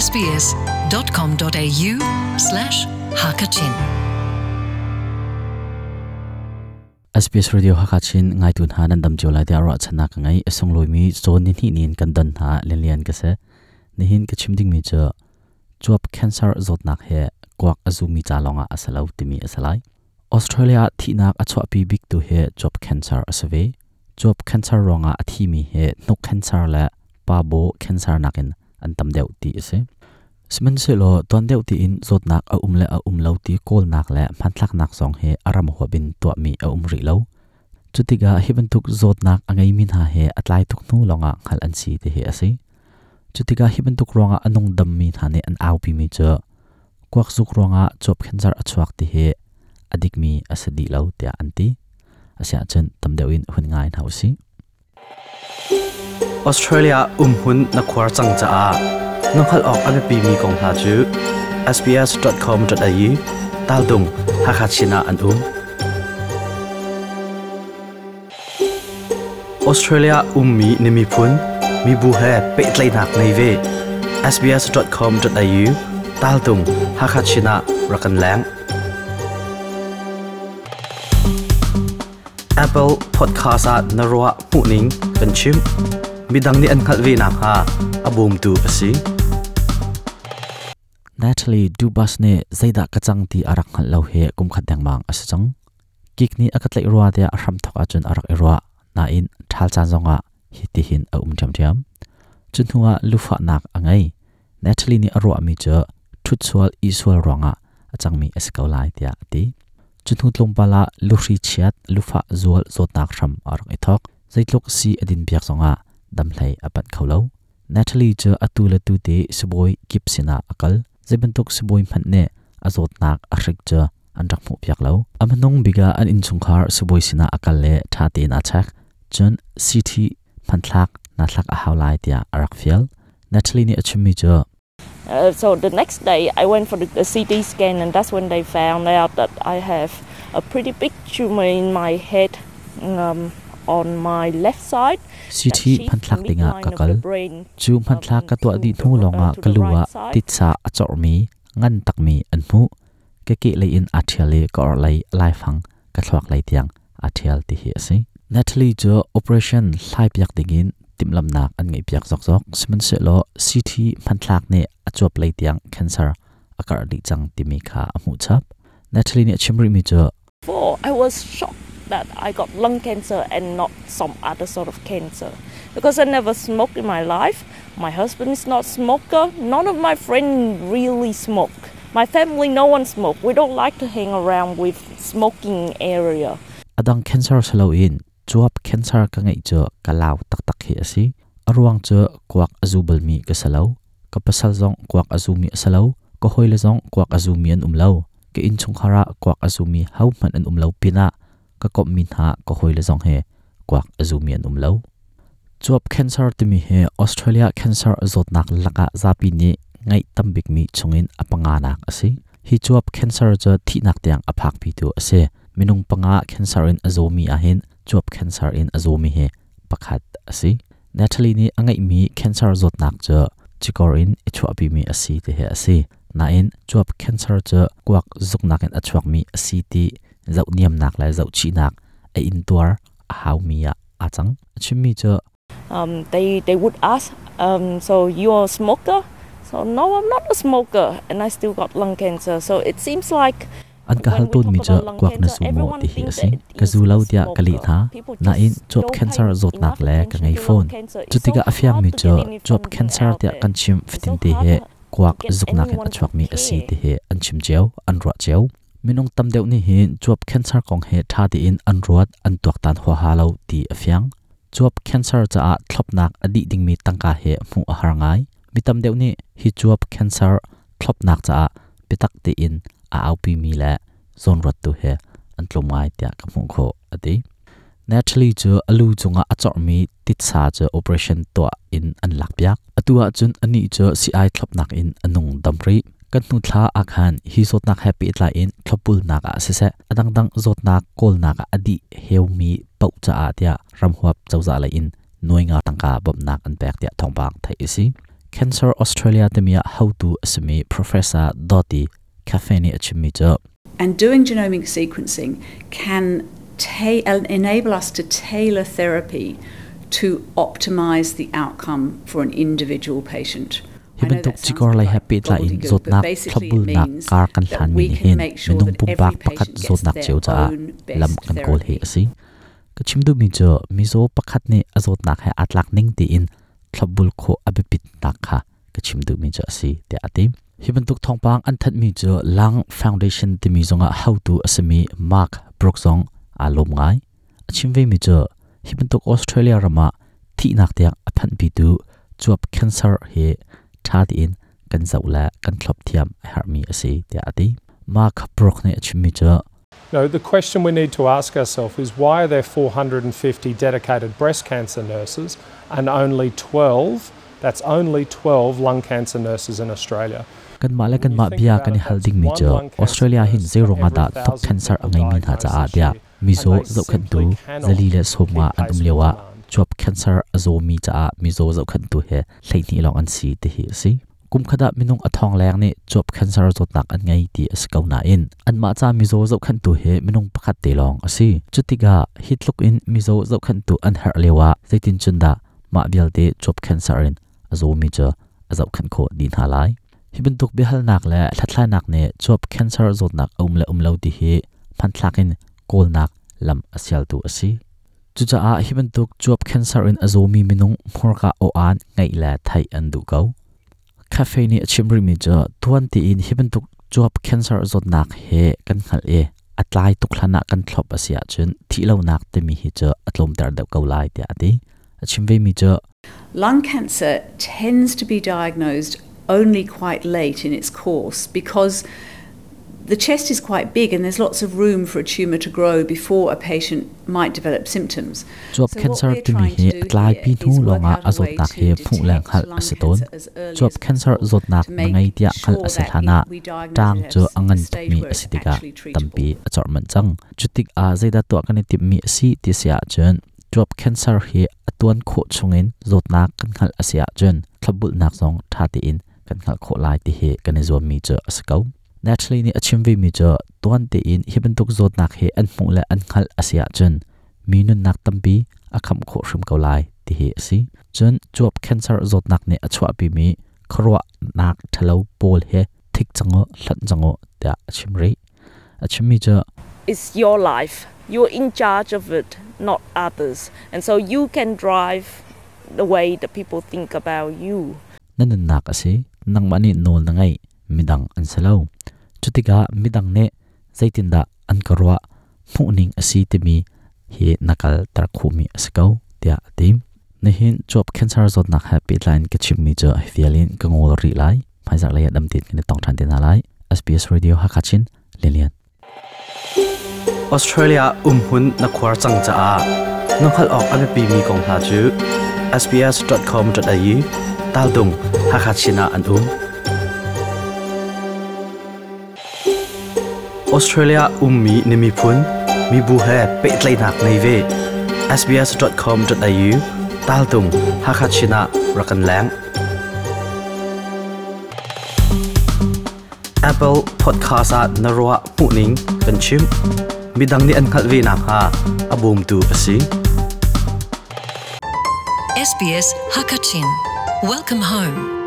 sbs.com.au slash hakachin SBS Radio Hakachin ngaitu hna nan dam cio lai tiah ruahchannak ka ngei. A sunglawi cawn ni hnih nin kan don hna lianlian ka si. Nihin ka chim dingmi cu cuap cancer zawtnak he kuak a zumi ca lawngah a si lo timi a si lai. Australia ah thihnak a chuahpi biktu hi cuap cancer a si ve. Cuap cancer ruangah a thimi hi hnuk cancer le pa baw cancer nakin an tam deuh ti a si. Sihmanhsehlaw tuan deuh tiin zawtnak a um le a um lo ti kawlnak le hmanthlaknak zong hi a ram huap in tuahmi a um rih lo. Cutikah hi bantuk zawtnak a ngeimi hna hi a tlai tuk hnu lawngah hngalh an si ti hi a si. Cutikah hi bantuk ruangah a nungdammi hna nih an aupimi cu kuakzuk ruangah cuap cancer a chuak ti hi a dikmi a si dih lo tiah an ti. Asiahcun tam deuh in hun ngai hna usih. Australia umhmun na khuar cang caah na hngalh awk a biapimi kong hna cu sbs.com.au taltung Hakha Chin ah an um. Australia ummi na miphun, mibu he pehtlaihnak ngei ve. sbs.com.au taltung Hakha Chin ah rak kan leng. Apple Podcast ah na ruah hmuhning kan chim. Midang nih an hngalh ve nakhnga a bawmtu a si. Natalie Dubas nih zeidah ka cang ti a rak hngalh lo hi kum khat dengmang a si cang. Kik nih a ka tlaih rua tiah a hramthawk ahcun a rak i ruah. Nain ṭhal caan zongah hitihin a um ṭhiamṭhiam. Cu hnuah lufahnak a ngei. Natalie nih a ruahmi cu ṭhutsual isual ruangah a cangmi a si ko lai tiah a ti. Cu hnu tlawmpal ah luhri chiat, lufah zual zawtnak hram a rak i thawk. Zeitluk si a din piak zongah damhlei a panh kho lo. Natalie cu atu le tu te sibawi kip sinah a kal. Zeibantuk sibawi hmanh nih a zawtnak a hrik cu an rak hmuhpiak lo. A hmanung bik ah an innchungkhar sibawi sinah a kal le ṭha tein aa check. Cun CT hmanthlak naa thlak a hau lai tiah a rak fial. Natalie nih a chimmi cu So the next day I went for the CT scan and that's when they found out that I have a pretty big tumor in my head on my left side. CT hmanthlak dingah ka kal. Cu hmanthlak ka tuah dih hnu lawngah ka lu ah titsa a corhmi ngan takmi an hmuh. Ka kehlei in aa ṭhial i ka orhlei laifang ka thluak lei tiang aa ṭhial ti hi a si. Natalie cu operation hlaipiak dingin timhlamhnak an ngeihpiak zokzok. Sihmanhsehlaw CT hmanthlak nih a cuap lei tiang cancer a karh dih cang timi kha a hmuh chap. Natalie nih a chim rihmi cu I was shocked that I got lung cancer and not some other sort of cancer because I never smoked in my life. My husband is not smoker. None of my friends really smoke. My family, no one smoke. We don't like to hang around with smoking area. Adang cancer saloin cuap cancer ka ngeih cu ka lau taktak hi a si. A ruang cu kuak a zu balmi ka si lo. Ka pasal zong kuak a zumi a si lo. Ka hawile zong kuak a zumi an um lo. Ka innchungkhar ah kuak a zumi hohmanh an um lo pinah ka komhmi hna ka hawile zong hi kuak a zumi an um lo. Cuap cancer timi hi Australia cancer zawtnak lakah zapi nih ngeih tam bikmi chungin a panganak a si. Hi cuap cancer cu thihnak tiang a phakpitu a si. Minung panga cancer in a zawmi ahhin cuap cancer in a zawmi hi pakhat a si. Natalie nih a ngeihmi cancer zawtnak cu cikor in i chuahpimi a si ti hi a si. Nain cuap cancer cu kuak zuknak in a chuakmi a si ti zohniamnak le zohchihnak a intuar a haumi ah aa cang. A chimmi cu They would ask, so you're a smoker? So no, I'm not a smoker and I still got lung cancer. So it seems like An ka hal tawnmi cu kuak na zu maw ti hi a si. Ka zu lo tiah ka leh hna. Nain cuap cancer zawtnak le ka ngei fawn. Cutikah a fiangmi cu cuap cancer tiah kan chim fatinte hi kuak zuknak in a chuakmi a si ti hi an chim cio, an ruah cio. Minung tam deuh nih hin cuap cancer kong hi ṭha tein an ruat, an tuaktan huaha lo ti a fiang. Cuap cancer caah thlopnak a dih dingmi tangka hi hmuh a har ngai. Mi tam deuh nih hi cuap cancer thlopnak caah biatak tein a aupimi le zawnruattu he an tlawm ngai tiah ka hmuh khawh a ti. Natalie cu a lu cungah a corhmi titsa cu operation tuah in an lakpiak. Atu ahcun anih cu sii-ai thlopnak in a nung dam rih. Kan hnu thla ah khan hi zawtnak he pehtlai in thlopbulnak ah siseh, a dangdang zawtnak kawlnak ah a dih heumi paoh caah tiah ramhuap cozah lei in nuai nga tangka bawmhnak an pek tiah thawngpang theih a si. Cancer Australia timi ah hotu a simi Professor Dottie Cafe nih a chimmi cu And doing genomic sequencing can enable us to tailor therapy to optimize the outcome for an individual patient. Hi bantuk cikor lei he pehtlai in zawtnak thlopbulnak kar kan hlanmi nih hin minung pumpak pakhat zawtnak cio caah lam kan kawl hi a si. Ka chim duhmi cu mizaw pakhat nih a zawtnak he aa tlak ning tiin thlopbul khawh a biapitnak kha ka chim duhmi cu a si tiah a ti. Hi bantuk thawngpang an thanhmi cu Lung Foundation timi zongah hotu a simi Mark Brooks zong aa lawm ngai. A chim vemi cu hi bantuk Australia ram ah thihnak tiang a phanhpitu cuap cancer hi ṭha tein kan zoh le kan thlop thiam a herhmi a si tiah a ti. Mark Brooke nih a chimmi cu No, the question we need to ask ourselves is why are there 450 dedicated breast cancer nurses and only 12, that's only 12 lung cancer nurses in Australia? Kanmah le kanmah bia kan i hal dingmi cu Australia hin zeiruang ah dah thok cancer a ngeimi hna caah tiah mizaw zohkhenhtu 450 an um lioah cuap cancer a zawmi caah mizaw zohkhenhtu he 12 lawng an si ti hi a si. Kum khat ah minung a thong leng nih cuap cancer zawtnak an ngei ti a si ko nain anmah ca mizaw zohkhenhtu hi minung pakhat te lawng a si. Cutikah hi tluk in mizaw zohkhenhtu an herh lioah zeitin cun dah mah vialte cuap cancer in a zawmi cu a zohkhenh khawh dih hna lai. Hi bantuk biahalnak le hlathlainak nih cuap cancer zawtnak a um le um lo ti hi hmanthlak in kawlnak lam a sialtu a si. Cucaah hi bantuk cuap cancer in a zawmi minung hmurka aw-aan ngeih le theih an duh ko. Cafe nih a chim rihmi cu tuan tiin hi bantuk cuap cancer zawtnak he kan hngalh i a tlai tuk hlan ah kan thlop a si ahcun thihlonak timi hi cu a tlawmter deuh ko lai tiah a ti. A chim vemi cu Lung cancer tends to be diagnosed only quite late in its course because the chest is quite big and there's lots of room for a tumor to grow before a patient might develop symptoms. Cuap cancer timi hi a tlaipi hnu lawngah a zawtnak hi hmuh le hngalh a si tawn. Cuap cancer zawtnak na ngei tiah hngalh a si hlanah ṭaang cu a ngan tukmi a si tikah tampi a corh manh cang. Cutik ah zeidah tuah kan i timhmi a si ti si ahcun cuap cancer hi a tuan khawh chungin zawtnak kan hngalh a si ahcun thlopbulhnak zong ṭha tein kan hngalh khawh lai ti hi kan i zuammi cu a si ko. Natalie nih a chim vemi cu tuan tein hi bantuk zawtnak hi an hmuh le an hngalh a si ahcun mi nunnak tampi a khamh khawh hrim ko lai ti hi a si. Cun cuap cancer zawtnak nih a chuahpimi khuaruahnak ṭhalo pawl hi thik cang u, hlonh cang u tiah a chim rih. A chimmi cu It's your life. You're in charge of it, not others. And so you can drive the way that people think about you. Na nunnak a si. Nangmah nih nawl na ngeih. Midang an si lo. Cutikah midang nih zeitindah an ka ruah hmuhning a si timi hi na kalter khawhmi a si ko tiah a ti. Nihin cuap cancer zawtnak he pehtlai in ka chimmi cu hi vial in ka ngawl rih lai. Hmaizarh lei ah dam tein kan i tong ṭhan te hna lai. SBS Radio Hakha Chin Lilian. Australia umhmun na khuar cang caah na hngalh awk a biapimi kong hna cu sbs.com.au taldung Hakha Chin ah an um. Australia ummi na miphun, mibu he pehtlaihnak ngei ve. sbs.com.au taltung Hakha Chin ah rak kan leng. Apple Podcast ah na ruah hmuhning kan chim. Midang nih an hngalh ve nakhnga a bawmtu a si. SBS Hakachin. Welcome home.